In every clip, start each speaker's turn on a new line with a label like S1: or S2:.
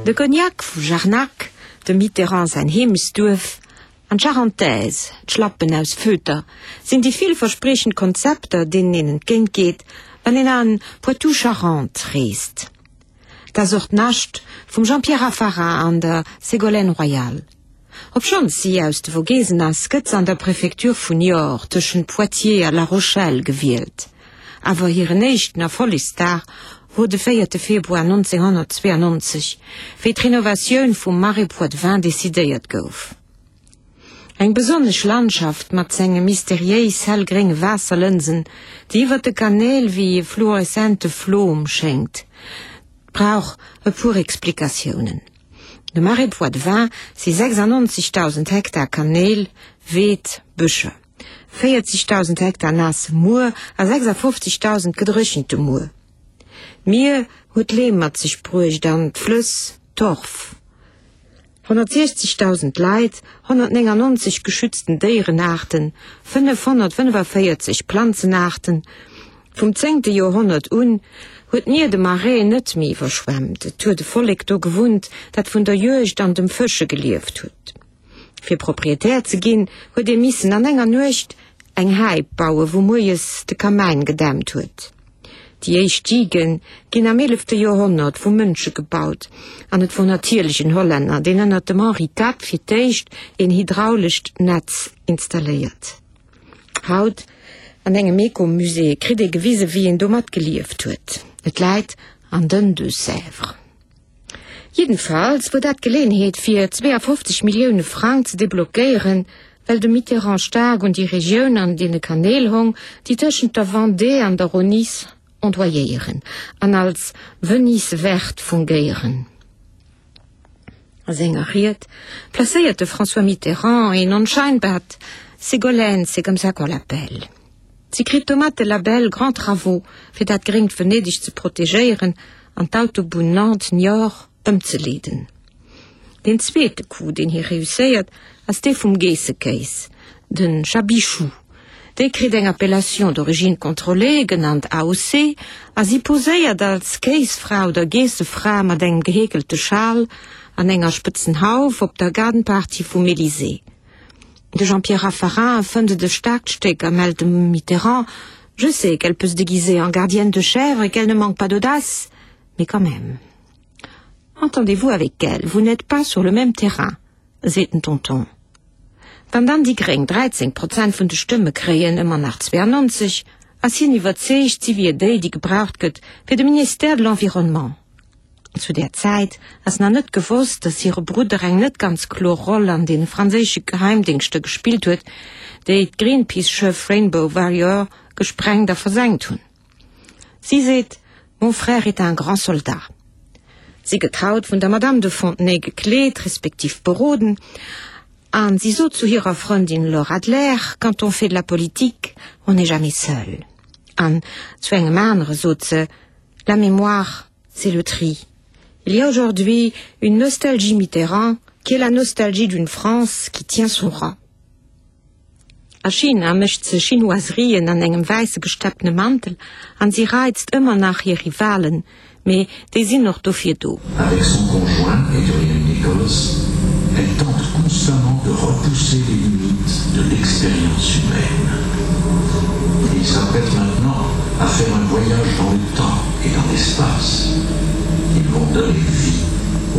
S1: De Cognac vu Jarnac, dem Mitterrand säin Heemechtsduerf, an d'Charentaise, d'Schlappen aus Feuter, sinn déi villverspriechend Konzepter, deenen een entgéint geet, wann een an Poitou-Charentes reest. 't ass och d'Nascht vum Jean-Pierre Raffarin an der Ségolène Royal. Obschonns si aus de Vogesen ass, gëtt se an der Prefektur vun Niort tëschent Poitiers a La Rochelle gewielt. Awer hiren éischten Erfollegsdag wor de véierte Februar 1992, wéi d'Renovatioun vum Marais Poitevin decidéiert gouf. Eng besonnesch Landschaft mat senge mysteriéis hellgrénge Waasserlënsen, déi iwwer de Kanäl wéi e fluoreszente Flom schéngt, brauch e puer Explikatiounen. De Marais Poitevin si 96.000 Hektar Kanäl, Weed, Bëscher, 40.000 Hektar naasse Muer a 56.000 gedréchente Muer. D'Mier huet Leem mat sech bruecht an d'Flëss Torf. 160.000 Leit, 199 geschützten Déierenaarten, 545 Planzenaarten. Vum zéngte Joerhonnert un huet d'Mier de Marais net méi iwwerschwemmt. Et huet e Vollek do gewunnt, dat vun der Juegd an dem Fësche gelieft huet. Fir Proprietär ze ginn, huet ee missen an enger Nuecht eng Häip bauen, wou moies de Kamäin gedämpt huet. Déi éischt Diguen ginn am eelefte Joerhonnert vu Mënsche gebaut, an et wor natierlech en Hollänner, deen ënnert dem Henri Tat fir d'éischt een hydraulescht Netz installéiert. Haut, an engem Ecomusée, kritt ee gewise wéi een domat gelieft huet. Et läit an den Deux-Sèvres. Jiddenfalls wor dat d'Geleeënheet fir 52 Millioune Frang ze deblockéieren, well de Mitterrand staark un déi Regioun an deene Kanäl hong, déi tëschent der Vendée an der Rhône ondoyéieren an als Venise verte fungéieren. A senger Ried placéiert de François Mitterrand een onscheinbart Ségolène, c'est comme ça qu'on l'appelle. Si kritt domat de Label Grands Travaux, fir dat gréngt Venedeg ze protegéieren an d'Autobunn Nantes-Niort ëmzeleeden. Deen zweete Coup, deen hie reusséiert, ass dee vum Geessekéis, de Chabichou. Dee kritt eng Appellation d'origine contrôlée, genannt AOC, a si poséiert als Kéisfra oder Geessefra mat engem geheekelte Schal an enger spëtzen Hauf op der Garden Party vum Elysée. De Jean-Pierre Raffarin fënnt et e staarkt Stéck a mellt dem Mitterrand, Je sais qu'elle peut se déguiser en gardienne de chèvre et qu'elle ne manque pas d'audace, mais quand même. Entendez-vous avec elle, vous n'êtes pas sur le même terrain, seet den Tonton. Wann dann déi Gréng 13 Prozent vun de Stëmme kréien, ëmmer nach 92, ass hien iwwerzeegt, si wier déi, déi gebraucht gëtt fir de Ministère de l'Environnement. Zu där Zäit ass nach net gewosst, datt hire Brudder eng net ganz kloer Roll an de franséische Geheimdéngschter gespillt huet, déi d'Greenpeace-Schëff Rainbow Warrior gesprengt a versenkt hunn. Si seet, Mon frère est un grand soldat. Si gëtt haut vun der Madame de Fontenay gekleet, respektiv beroden, a si sot zu hirer Frëndin Laure Adler, Quand on fait de la politique, on n'est jamais seul. An zu engem anere sot se, La mémoire, c'est le tri. Il y a aujourd'hui une nostalgie Mitterrand qui est la nostalgie d'une France qui tient son rang. A China mécht se Chinoiserien an engem wäisse gestepptene Mantel an si reizt ëmmer nach hir Rivalen, mee déi sinn och dofir do.
S2: Avec son conjoint Adrian Nichols, elle tente constamment de repousser les limites de l'expérience humaine. Il s'apprête maintenant à faire un voyage dans le temps et dans l'espace. Ils vont donner vie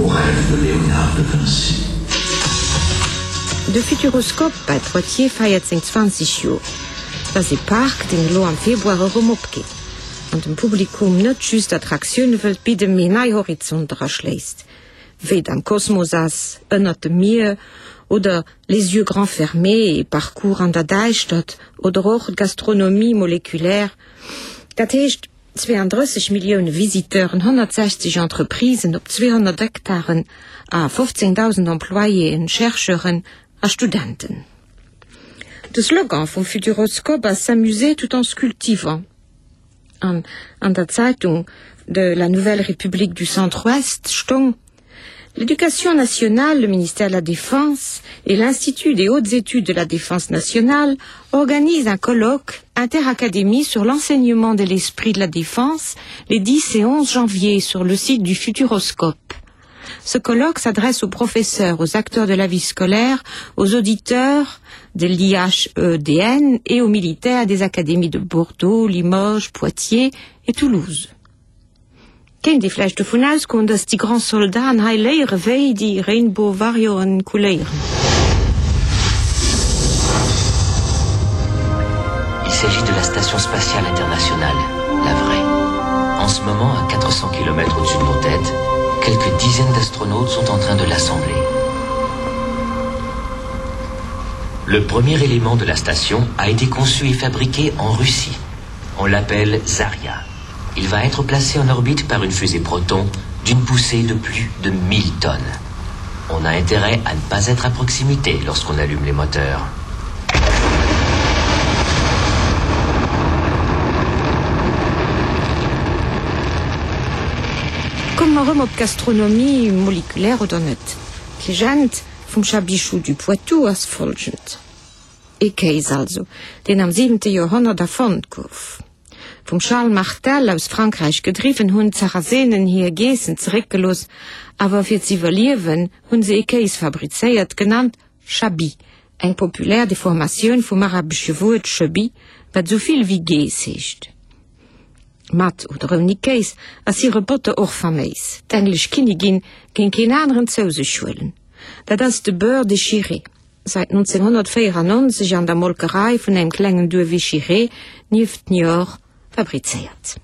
S2: au rêve de Léonard de Vinci.
S1: De Futuroscope bei Poitiers feiert seng 20 Joer. Et ass ee Park, deen elo am Februar erëm opgeet an dem Publikum net just Attraktioune wëllt bidden, mee nei Horizonter erschléisst, wéi et am Kosmos ass, ënnert dem Mier oder Les yeux grands fermés, ee Parcours an der Däischtert oder och d'Gastronomie moléculaire. Dat heescht 32 Millioune Visiteuren, 160 Entreprisen op 200 Hektaren a 15.000 Employéen, Chercheuren a Studenten. De Slogan vum Futuroscope ass S'amuser tout en se cultivant. An an der Zeitung de la Nouvelle République du Centre-Ouest stong, L'Éducation nationale, le ministère de la Défense et l'Institut des hautes études de la Défense nationale organisent un colloque interacadémie sur l'enseignement de l'esprit de la défense les 10 et 11 janvier sur le site du Futuroscope. Ce colloque s'adresse aux professeurs, aux acteurs de la vie scolaire, aux auditeurs de l'IHEDN et aux militaires des académies de Bordeaux, Limoges, Poitiers et Toulouse. Kéint ee vläicht dovun ausgoen, dass déi Grands Soldaten hei léiere wéi déi Rainbow Warrioren couléieren.
S3: Il s'agit de la station spatiale internationale, la vraie. En ce moment, à 400 km au-dessus de nos têtes, quelques dizaines d'astronautes sont en train de l'assembler. Le premier élément de la station a été conçu et fabriqué en Russie. On l'appelle Zarya. Il va être placé en orbite par une fusée Proton d'une poussée de plus de 1000 tonnes. On a intérêt à ne pas être à proximité lorsqu'on allume les moteurs.
S1: Komme mer erëm op d'Gastronomie, molekulaire oder net. D'Legend vum Chabichou du Poitou ass folgend. Ee Kéis also, deen am siwente Joerhonnert erfonnt gouf. Vum Charles Martel aus Frankräich gedriwwen, hunn d'Sarasenen hir Geessen zeréckgelooss, awer fir z'iwwerliewen hunn se ee Kéis fabrizéiert, genannt Chabi, eng populär Deformatioun vum arabesche Wuert Chebi, wat esou vill wéi Geess heescht. Mat oder ouni Kéis ass hire Botter och faméis, d'englesch Kinnigin géing keen aneren zou sech huelen, dat ass de Beurre de Chiré. Säit 1994 an der Molkerei vun engem klengen Duerf Échiré nieft Niort fabrizéiert.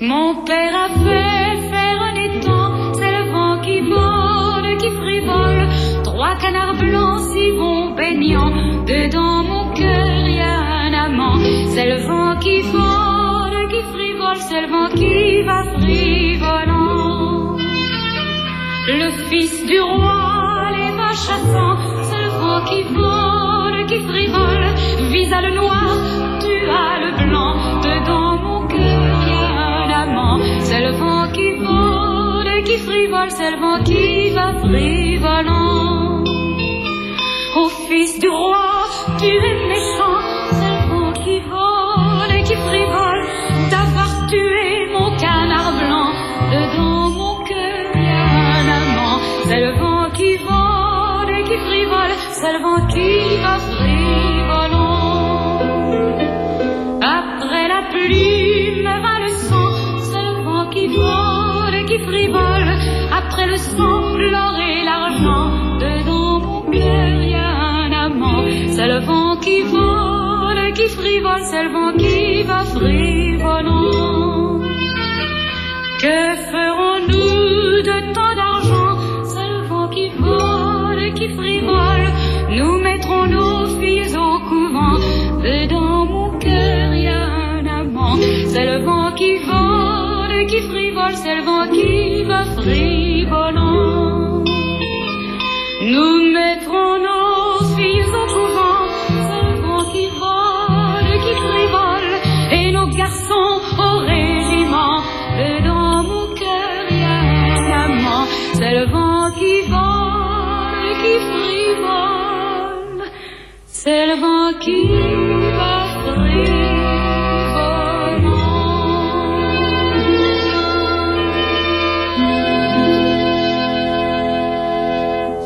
S4: Mon père a fait faire un étang, c'est le vent qui vole, qui frivole. Trois canards blancs s'y vont baignant, dedans mon cœur y a un amant. C'est le vent qui vole, qui frivole, c'est le vent qui va frivolant. Le fils du roi les va chassant, c'est le vent qui vole, qui frivole. Visa le noir, tu as le blanc, dedans mon cœur y a un amant. C'est le vent qui vole, qui frivole, c'est le vent qui va frivolant. Au fils du roi, tu es méchant, c'est le vent qui vole et qui frivole d'avoir tué mon canard blanc. Dedans mon cœur y a un amant, c'est le vent qui vole et qui frivole, c'est le vent qui va frivolant. Après la plume va le sang, c'est le vent qui vole et qui frivole. Après le sang, l'or et l'argent, dedans mon cœur y a un amant, c'est le vent qui vole et qui frivole, c'est le vent qui va frivolant. Que ferons-nous de tant d'argent? C'est le vent qui vole et qui frivole. Nous mettrons nos filles au couvent. Dedans mon cœur y a un amant. C'est le vent qui vole et qui frivole, c'est le vent qui va frivolant. Nous mettrons nos filles au couvent. C'est le vent qui vole et qui frivole, et nos garçons au régiment. Dedans mon cœur y a un amant. C'est le vent qui vole et qui frivole, c'est le vent qui va frivolant.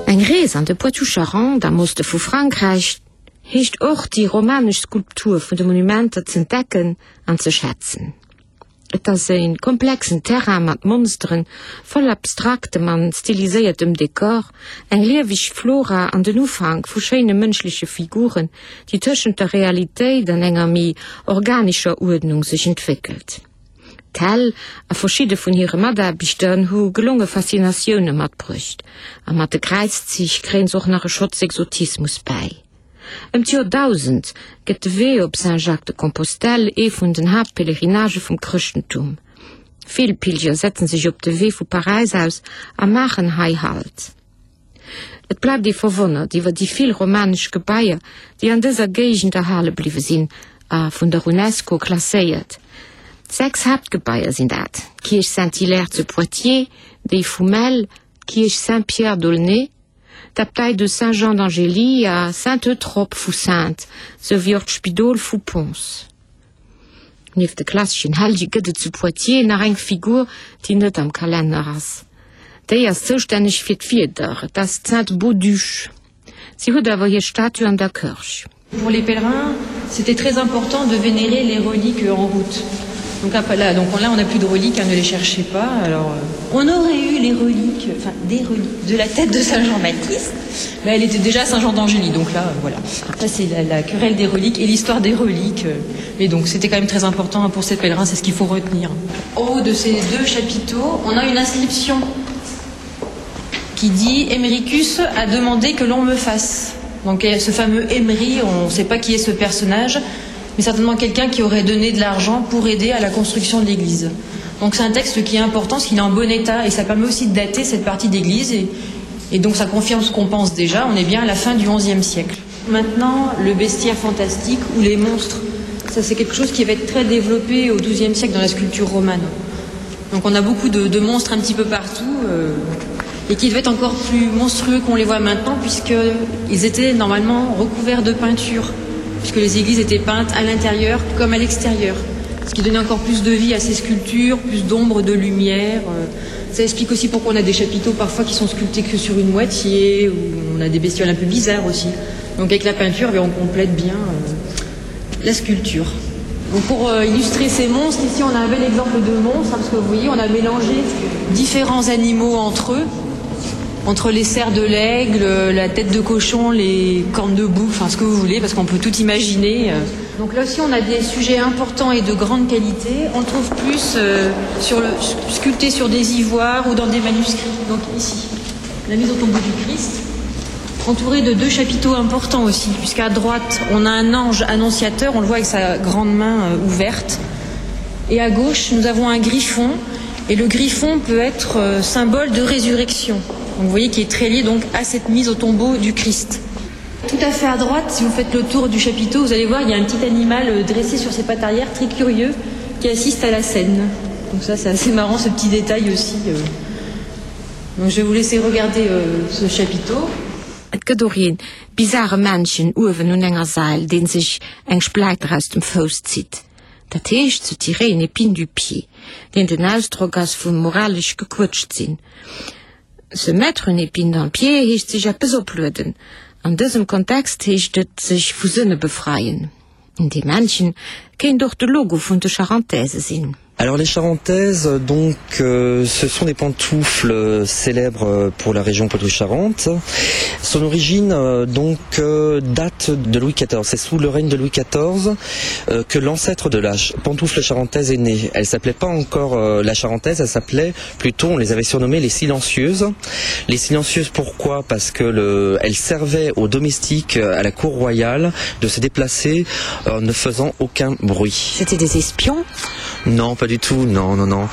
S1: Eng Rees an de Poitou-Charentes am Oste vu Frankräich heescht och, déi romanesch Skulptur vun de Monumenter z'entdecken an ze schätzen. Et ass e komplexen Terrain mat Monsteren, voll abstraktem an stiliséiertem Dekor, eng lieweg Flora an den Ufank vu schéine mënschleche Figuren, déi tëschent der Realitéit an enger méi organescher Uerdnung sech entwéckelt. D'Hell a verschidde vun hire Mataarbechter hu gelonge Faszinatioune matbruecht, a mat de Kräizzich kréien se och nach e Schotz Exotismus bäi. Ëm d'Joer 1000 gëtt de Wee op Saint-Jacques-de-Compostelle ee vun den Haaptpèlerinagë vum Chrëschtentum. Vill Pilger setzen sech op de Wee vu Paräis aus a maachen hei Halt. Et bleift ee verwonnert iwwer déi vill romanesch Gebaier, déi an dëser Géigend erhale bliwwe sinn a vun der Unesco klasséiert. 6 Haaptgebaier sinn dat, d'Kierch Saint-Hilaire zu Poitiers, déi vu Melle, d'Kierch Saint-Pierre d'Aulnay, D'Abtei de Saint-Jean d'Angély a Saint-Eutrope vu Saintes, sou wéi och d'Spidol vu Pons. Nieft de klasseschen Hellege gëtt et zu Poitiers nach eng Figur, déi net am Kalenner ass. Déi ass zoustänneg fir d'Wieder, et ass d'Sainte Bauduche. Si huet awer hir Statue an der Kërch.
S5: Pour les pèlerins, c'était très important de vénérer les reliques en route. Donc là, donc là on n'a plus de reliques, hein, ne les cherchez pas. Alors, euh, on aurait eu les reliques, enfin des reliques de la tête de Saint Jean-Baptiste, mais elle était déjà Saint Jean d'Angély, donc là, euh, voilà. Ça c'est la, la querelle des reliques et l'histoire des reliques. Euh, mais donc c'était quand même très important hein, pour ces pèlerins, c'est ce qu'il faut retenir. Au haut de ces deux chapiteaux, on a une inscription qui dit Emericus a demandé que l'on me fasse. Donc ce fameux Emery, on ne sait pas qui est ce personnage, mais certainement quelqu'un qui aurait donné de l'argent pour aider à la construction de l'église. Donc c'est un texte qui est important parce qu'il est en bon état et ça permet aussi de dater cette partie d'église et, et donc ça confirme ce qu'on pense déjà, on est bien à la fin du XIe siècle. Maintenant, le bestiaire fantastique ou les monstres, ça c'est quelque chose qui va être très développé au XIIe siècle dans la sculpture romane. Donc on a beaucoup de, de monstres un petit peu partout euh, et qui devaient être encore plus monstrueux qu'on les voit maintenant puisqu'ils étaient normalement recouverts de peinture, puisque les églises étaient peintes à l'intérieur comme à l'extérieur, ce qui donnait encore plus de vie à ces sculptures, plus d'ombre, de lumière. Euh. Ça explique aussi pourquoi on a des chapiteaux parfois qui sont sculptés que sur une moitié, ou on a des bestioles un peu bizarres aussi. Donc avec la peinture, on complète bien euh, la sculpture. Donc pour euh, illustrer ces monstres, ici on a un bel exemple de monstre, hein, parce que vous voyez, on a mélangé différents animaux entre eux, entre les serres de l'aigle, la tête de cochon, les cornes de bouffe, enfin ce que vous voulez, parce qu'on peut tout imaginer. Euh. Donc là aussi on a des sujets importants et de grande qualité. On le trouve plus euh, sur le, sculpté sur des ivoires ou dans des manuscrits. Donc ici, la mise au tombeau du Christ entouré de deux chapiteaux importants aussi, puisqu'à droite on a un ange annonciateur, on le voit avec sa grande main euh, ouverte. Et à gauche, nous avons un griffon, et le griffon peut être euh, symbole de résurrection. Donc vous voyez qu'il est très lié donc à cette mise au tombeau du Christ. Tout à fait à droite, si vous faites le tour du chapiteau, vous allez voir, il y a un petit animal euh, dressé sur ses pattes arrière, très curieux, qui assiste à la scène. Donc ça, c'est assez marrant, ce petit détail aussi. Donc je vais vous laisser regarder euh, ce chapiteau.
S1: Et gëtt och een bizarre Männchen uewen un enger Sail, deen sech eng Spläiter aus dem Fouss zitt, dat heescht se tirer une épine du pied, deen den Ausdrock ass vu moralesch gequëtscht sinn. Se mettre une épine dans le pied heescht sech eppes oplueden. An dësem Kontext heescht et sech vu Sënne befreien. Dee Männchen kéint och de Logo vun de Charentaises sinn.
S6: Alors les charentaises donc euh, ce sont des pantoufles euh, célèbres euh, pour la région Poitou-Charentes. Son origine euh, donc euh, date de Louis XIV. C'est sous le règne de Louis XIV euh, que l'ancêtre de la pantoufle charentaise est né. Elle s'appelait pas encore euh, la charentaise, elle s'appelait plutôt on les avait surnommées les silencieuses. Les silencieuses pourquoi Parce que le, elle servait aux domestiques euh, à la cour royale de se déplacer en ne faisant aucun bruit.
S1: C'était des espions
S6: Non, pas du tout non non non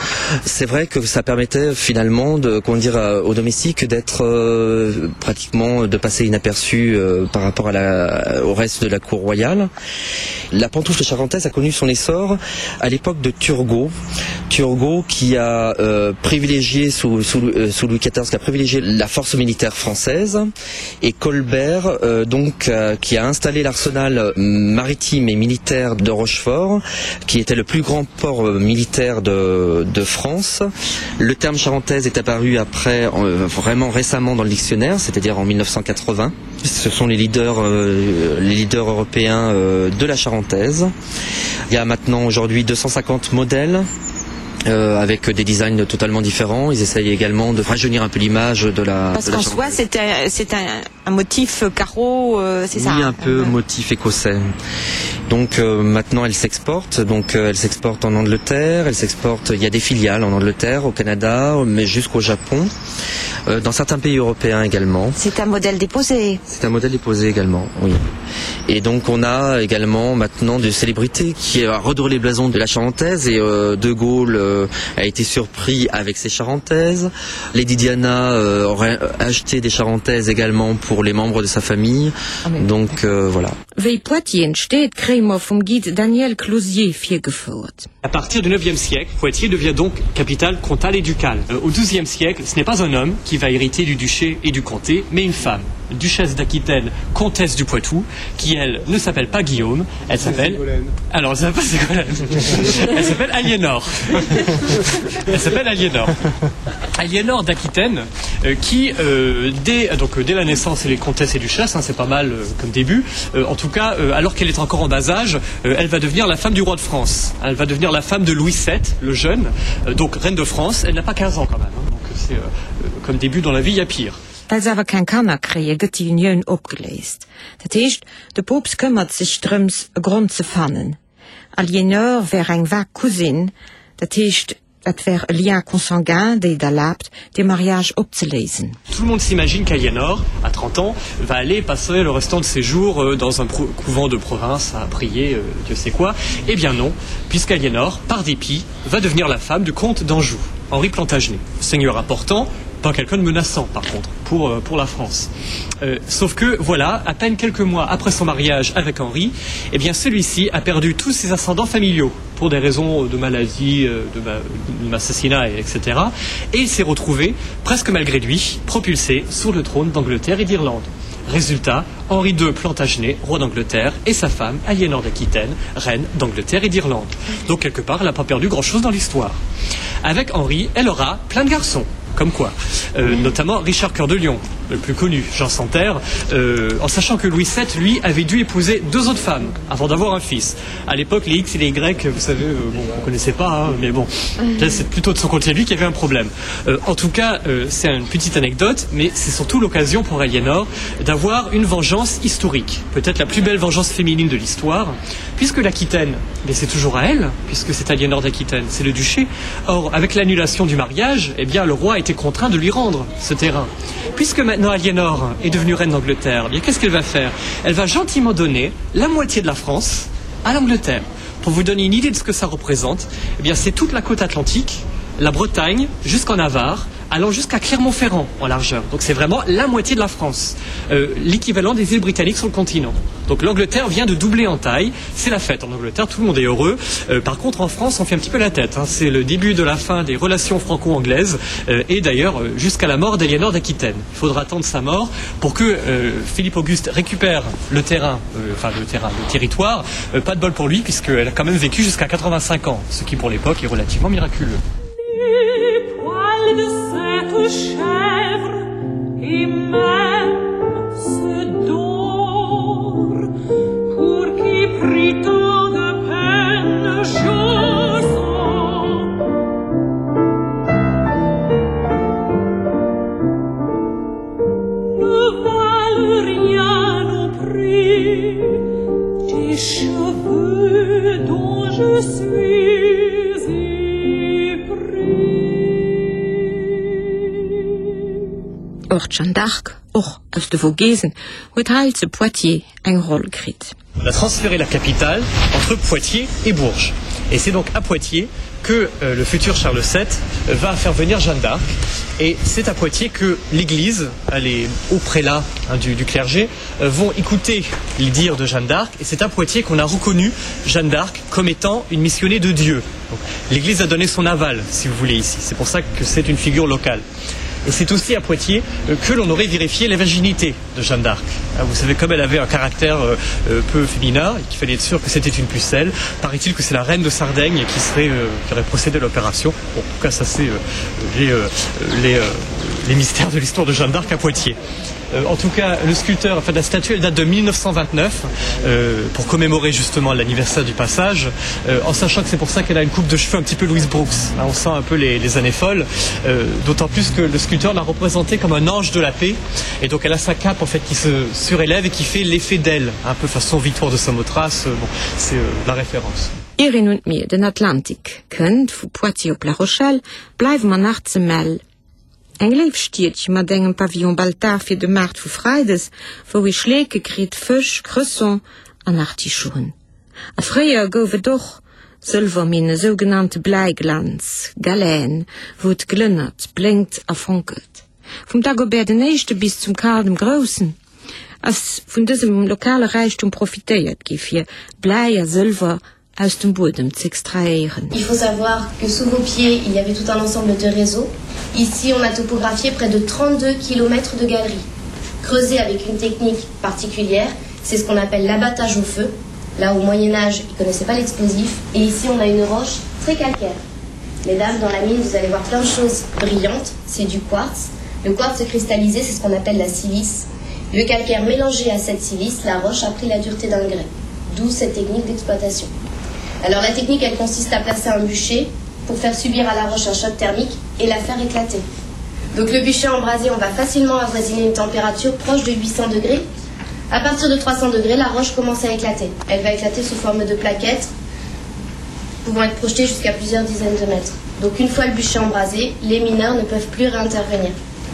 S6: c'est vrai que ça permettait finalement de comment dire euh, aux domestiques d'être euh, pratiquement de passer inaperçu euh, par rapport à la au reste de la cour royale la pantoufle charentaise a connu son essor à l'époque de Turgot Turgot qui a euh, privilégié sous, sous, euh, sous Louis XIV qui a privilégié la force militaire française et Colbert euh, donc euh, qui a installé l'arsenal maritime et militaire de Rochefort qui était le plus grand port euh, militaire de, de France. Le terme charentaise est apparu après euh, vraiment récemment dans le dictionnaire, c'est-à-dire en 1980. Ce sont les leaders, euh, les leaders européens euh, de la charentaise. Il y a maintenant aujourd'hui 250 modèles euh, avec des designs totalement différents. Ils essayent également de rajeunir un peu l'image de la
S1: Parce qu'en soi c'est un, un, un motif carreau euh, c'est
S6: oui,
S1: ça
S6: un peu ouais. motif écossais. Donc euh, maintenant elle s'exporte donc euh, elle s'exporte en Angleterre, elle s'exporte il y a des filiales en Angleterre, au Canada, mais jusqu'au Japon, euh, dans certains pays européens également.
S1: C'est un modèle déposé.
S6: C'est un modèle déposé également oui. Et donc on a également maintenant des célébrités qui a redoré les blasons de la Charentaise et euh, De Gaulle euh, a été surpris avec ses Charentaises. Lady Diana euh, aurait acheté des Charentaises également pour pour les membres de sa famille. Donc euh, voilà.
S1: Wéi Poitiers entsteet, kréie mer vum Guide Daniel Closier virgefouert.
S7: À partir du 9e siècle, Poitiers devient donc capitale comtale et ducale. Euh, au 12e siècle, ce n'est pas un homme qui va hériter du duché et du comté, mais une femme, duchesse d'Aquitaine, comtesse du Poitou, qui elle ne s'appelle pas Guillaume, elle s'appelle alors elle s'appelle elle s'appelle Aliénor. elle s'appelle Aliénor. Aliénor d'Aquitaine euh, qui euh, dès donc euh, dès la naissance et les comtesses et duchesses, hein, c'est pas mal euh, comme début. Euh, en tout cas, euh, alors qu'elle est encore en bas âge, euh, elle va devenir la femme du roi de France. Elle va devenir la femme de Louis VII, le jeune, euh, donc reine de France. Elle n'a pas 15 ans quand même, hein, donc c'est euh, euh, comme début dans la vie, il y a pire.
S1: Well se awer keng Kanner kréie, gëtt déi Unioun opgeléist. Dat heescht, de Poopst këmmert sech drëms, e Grond ze fannen. Aliénor wär eng vag Cousine, dat heescht, et wär e Lien consanguin, déi et erlaabt, dee Mariage opzeléisen.
S7: Tout le monde s'imagine qu'Aliénor, à 30 ans, va aller passer le restant de ses jours euh, dans un couvent de province à prier euh, Dieu sait quoi. Eh bien non, puisqu'Aliénor, par dépit, va devenir la femme du comte d'Anjou, Henri Plantagenet, seigneur important, pas quelqu'un de menaçant par contre pour, euh, pour la France. Euh, sauf que voilà, à peine quelques mois après son mariage avec Henri, eh bien celui-ci a perdu tous ses ascendants familiaux pour des raisons de maladie, euh, de, d'assassinat, etc. Et il s'est retrouvé, presque malgré lui, propulsé sur le trône d'Angleterre et d'Irlande. Résultat, Henri II Plantagenet, roi d'Angleterre, et sa femme, Aliénor d'Aquitaine, reine d'Angleterre et d'Irlande. Donc quelque part, elle n'a pas perdu grand-chose dans l'histoire. Avec Henri, elle aura plein de garçons comme quoi euh, notamment Richard Cœur de Lion, le plus connu, Jean Santerre, euh, en sachant que Louis VII, lui, avait dû épouser deux autres femmes avant d'avoir un fils. À l'époque, les X et les Y, vous savez, euh, bon, on connaissait pas, hein, mais bon, c'est plutôt de son côté lui qu'il y avait un problème. Euh, en tout cas, euh, c'est une petite anecdote, mais c'est surtout l'occasion pour Aliénor d'avoir une vengeance historique, peut-être la plus belle vengeance féminine de l'histoire, puisque l'Aquitaine, mais c'est toujours à elle, puisque c'est Aliénor d'Aquitaine, c'est le duché. Or, avec l'annulation du mariage, eh bien, le roi était contraint de lui rendre ce terrain. Puisque maintenant Aliénor est devenue reine d'Angleterre, eh bien qu'est-ce qu'elle va faire? Elle va gentiment donner la moitié de la France à l'Angleterre. Pour vous donner une idée de ce que ça représente, eh bien c'est toute la côte atlantique, la Bretagne jusqu'en Navarre, allant jusqu'à Clermont-Ferrand en largeur. Donc c'est vraiment la moitié de la France, euh, l'équivalent des îles britanniques sur le continent. Donc l'Angleterre vient de doubler en taille, c'est la fête en Angleterre, tout le monde est heureux. Euh, par contre en France, on fait un petit peu la tête. C'est le début de la fin des relations franco-anglaises euh, et d'ailleurs euh, jusqu'à la mort d'Éléonore d'Aquitaine. Il faudra attendre sa mort pour que euh, Philippe Auguste récupère le terrain, euh, enfin le terrain, le territoire. Euh, pas de bol pour lui puisqu'elle a quand même vécu jusqu'à 85 ans, ce qui pour l'époque est relativement miraculeux.
S4: Les poils de cette chèvre et même ce d'or pour qui prit tant de peine je Ne valent rien au prix des cheveux dont je suis épris.
S1: Och d'Jeanne d'Arc, och aus de Vogesen, huet hei zu Poitiers eng Roll kritt.
S7: On a transféré la capitale entre Poitiers et Bourges. Et c'est donc à Poitiers que euh, le futur Charles VII euh, va faire venir Jeanne d'Arc. Et c'est à Poitiers que l'Église, les hauts prélats hein, du, du clergé, euh, vont écouter les dires de Jeanne d'Arc. Et c'est à Poitiers qu'on a reconnu Jeanne d'Arc comme étant une missionnée de Dieu. L'Église a donné son aval, si vous voulez, ici. C'est pour ça que c'est une figure locale. Et c'est aussi à Poitiers euh, que l'on aurait vérifié la virginité de Jeanne d'Arc. Ah, vous savez, comme elle avait un caractère euh, euh, peu féminin et qu'il fallait être sûr que c'était une pucelle, paraît-il que c'est la reine de Sardaigne qui, serait, qui aurait procédé à l'opération. Bon, en tout cas, ça c'est les, les, les mystères de l'histoire de Jeanne d'Arc à Poitiers. Euh, en tout cas, le sculpteur, enfin la statue, elle date de 1929 euh, pour commémorer justement l'anniversaire du passage, euh, en sachant que c'est pour ça qu'elle a une coupe de cheveux un petit peu Louise Brooks. Hein, on sent un peu les, les années folles, euh, d'autant plus que le sculpteur l'a représentée comme un ange de la paix, et donc elle a sa cape en fait qui se surélève et qui fait l'effet d'elle, un peu façon Victoire de Samothrace, euh, bon, c'est euh, la référence.
S1: Ier een un d'Mier, den Atlantik, kënnt, vu Poitiers op La Rochelle, bleiwe mer nach ze Mel. Eng léif Stiedche mat engem Pavillon Baltard fir de Maart vu Freides, wou ee Schleeke kritt, Fësch, Cresson an Artichoen. A fréier gouf et och Sëlwerminne, sougenannte Bläiglanz, Galène, wou et glënnert, blénkt a fonkelt. Vum Dagobert den Éischte bis zum Karl dem Groussen. ass vun dësem lokale Räichtum profitéiert gi fir Bläi a Sëlwer aus dem Buedem z'extrahéieren.
S8: Il faut savoir que sous vos pieds, il y avait tout un ensemble de réseaux. Ici, on a topographié près de 32 km de galeries, creusées avec une technique particulière, c'est ce qu'on appelle l'abattage au feu. Là, au Moyen Âge, ils connaissaient pas l'explosif. Et ici, on a une roche très calcaire. Mesdames, dans la mine, vous allez voir plein de choses brillantes, c'est du quartz. Le quartz cristallisé, c'est ce qu'on appelle la silice. Le calcaire mélangé à cette silice, la roche a pris la dureté d'un grès. D'où cette technique d'exploitation. Alors la technique, elle consiste à placer un bûcher pour faire subir à la roche un choc thermique et la faire éclater. Donc le bûcher embrasé, on va facilement avoisiner une température proche de 800 degrés. À partir de 300 degrés, la roche commence à éclater. Elle va éclater sous forme de plaquettes pouvant être projetées jusqu'à plusieurs dizaines de mètres. Donc une fois le bûcher embrasé, les mineurs ne peuvent plus réintervenir.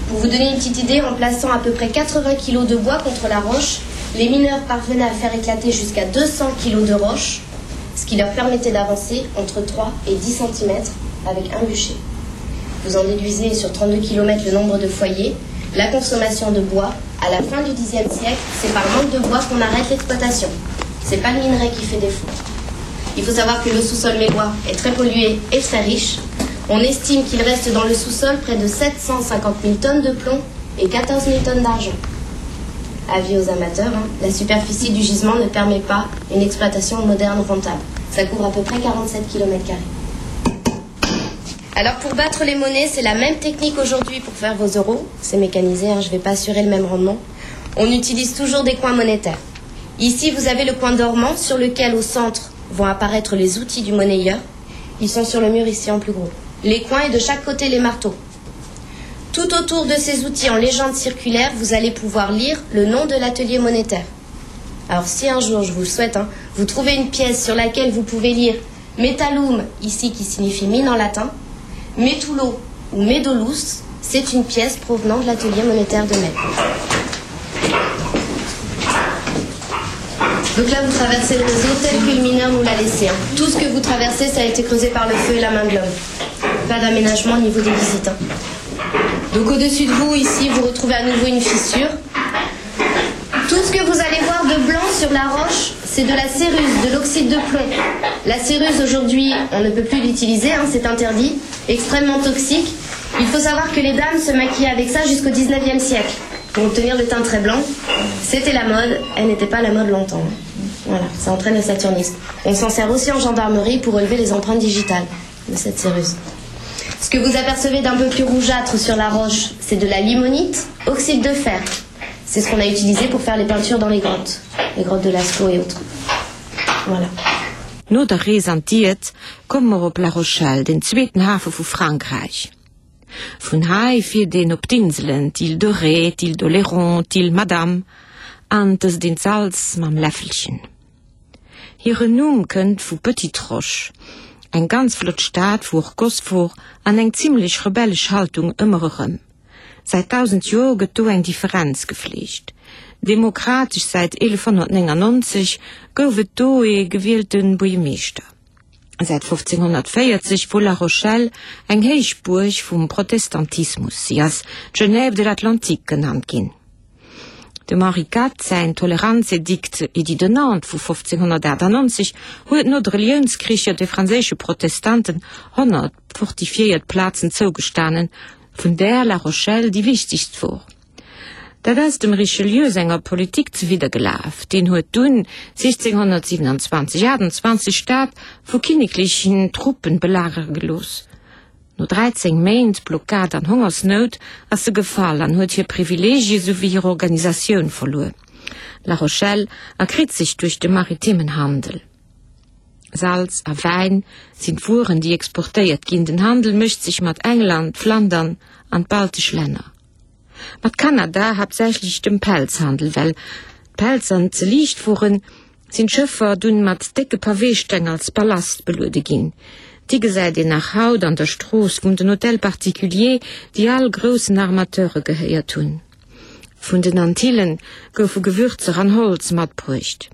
S8: Pour vous donner une petite idée, en plaçant à peu près 80 kg de bois contre la roche, les mineurs parvenaient à faire éclater jusqu'à 200 kg de roche, ce qui leur permettait d'avancer entre 3 et 10 cm avec un bûcher. Vous en déduisez sur 32 km le nombre de foyers, la consommation de bois. À la fin du Xe siècle, c'est par manque de bois qu'on arrête l'exploitation. C'est pas le minerai qui fait défaut. Il faut savoir que le sous-sol mélois est très pollué et très riche. On estime qu'il reste dans le sous-sol près de 750 000 tonnes de plomb et 14 000 tonnes d'argent. Avis aux amateurs, hein, la superficie du gisement ne permet pas une exploitation moderne rentable. Ça couvre à peu près 47 km. Alors pour battre les monnaies, c'est la même technique aujourd'hui pour faire vos euros. C'est mécanisé, hein, je ne vais pas assurer le même rendement. On utilise toujours des coins monétaires. Ici, vous avez le coin dormant sur lequel, au centre, vont apparaître les outils du monnayeur. Ils sont sur le mur ici en plus gros. Les coins et de chaque côté les marteaux. Tout autour de ces outils en légende circulaire, vous allez pouvoir lire le nom de l'atelier monétaire. Alors si un jour, je vous le souhaite, hein, vous trouvez une pièce sur laquelle vous pouvez lire Metalum, ici qui signifie mine en latin, Metulo ou Medolus, c'est une pièce provenant de l'atelier monétaire de Metz. Donc là, vous traversez le réseau tel que le mineur nous l'a laissé. Hein. Tout ce que vous traversez, ça a été creusé par le feu et la main de l'homme. Pas d'aménagement au niveau des visites. Hein. Donc au-dessus de vous, ici, vous retrouvez à nouveau une fissure. Tout ce que vous allez voir de blanc sur la roche, c'est de la céruse, de l'oxyde de plomb. La céruse, aujourd'hui, on ne peut plus l'utiliser, hein, c'est interdit, extrêmement toxique. Il faut savoir que les dames se maquillaient avec ça jusqu'au 19e siècle pour obtenir le teint très blanc. C'était la mode, elle n'était pas la mode longtemps. Voilà, ça entraîne le saturnisme. On s'en sert aussi en gendarmerie pour relever les empreintes digitales de cette céruse. Ce que vous apercevez d'un peu plus rougeâtre sur la roche, c'est de la limonite, oxyde de fer. C'est ce qu'on a utilisé pour faire les peintures dans les grottes, les grottes de Lascaux et autres. Voilà.
S1: No der Rees an d'Diet komme mer op La Rochelle, den zweeten Hafe vu Frankräich. Vun hei fiert een op d'Inselen, d'Île de Ré, d'Île d'Oléron, d'Île Madame an dëst een d'Salz mam Läffelchen. Hiren Numm kënnt vu Petite Roche, eng ganz flott Stad wou och Goss wor an eng zimlech rebellesch Haltung ëmmer erëm. Säit 1000 Joer gëtt do eng Differenz gefleegt. Demokratesch säit 1199 gouf et do ee gewielte Buergemeeschter. Säit 1540 wor La Rochelle eng Héichbuerg vum Protestantismus, si ass d'Genève de l'Atlantique genannt ginn. Dem Henri Quat säin Toleranzedikt, Édit de Nantes, vu 1598 huet no de Reliounskricher de franséische Protestanten 100 fortifiéiert Plazen zougestanen, vun där La Rochelle déi wichtegst wor. Dat ass dem Richelieu senger Politik zewidder gelaf, deen huet dunn 1627, 28 d'Stad vu kinneklechen Truppen belagere gelooss. No 13 Méint Blockad an Hongersnout ass se gefall an huet hir Privileegie souwéi hir Organisatioun verluer. La Rochelle erkritt sech duerch de maritimen Handel. Salz a Wäin sinn d'Wueren déi exportéiert ginn. Den Handel mécht sech mat England, Flandern an d'baltesch Länner. Mat Kanada haaptsächlech dem Pelzhandel. Well d'Pelzer ze liicht woren, sinn d'Schëffer dunn mat décke Paweesteng als Ballast beluede ginn. Déi gesäit een nach haut an der Strooss vum den Hôtels particuliers, déi all groussen Armateure gehéiert hunn. Vun den Antillen goufe Gewürzer an Holz matbruecht.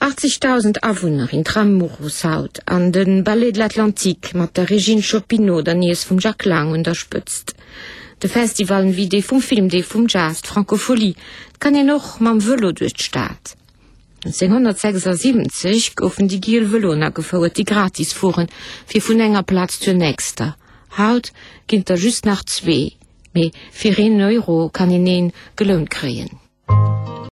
S1: 80.000 Awunner, Intramuros haut, an de Ballet de l'Atlantique mat der Régine Chopinot, der Niess vum Jack Lang, un der Spëtzt. De Festivalen wéi dee vum Film, dee vum Jazz, d'Francophonie. Et kann een och mam Vëlo duerch d'Stad. 1976 goufen déi giel Vëloen agefouert, déi gratis fueren, fir vun enger Plaz zur nächster. Haut ginn et der just nach zwee, mee fir een Euro kann een een gelount kréien.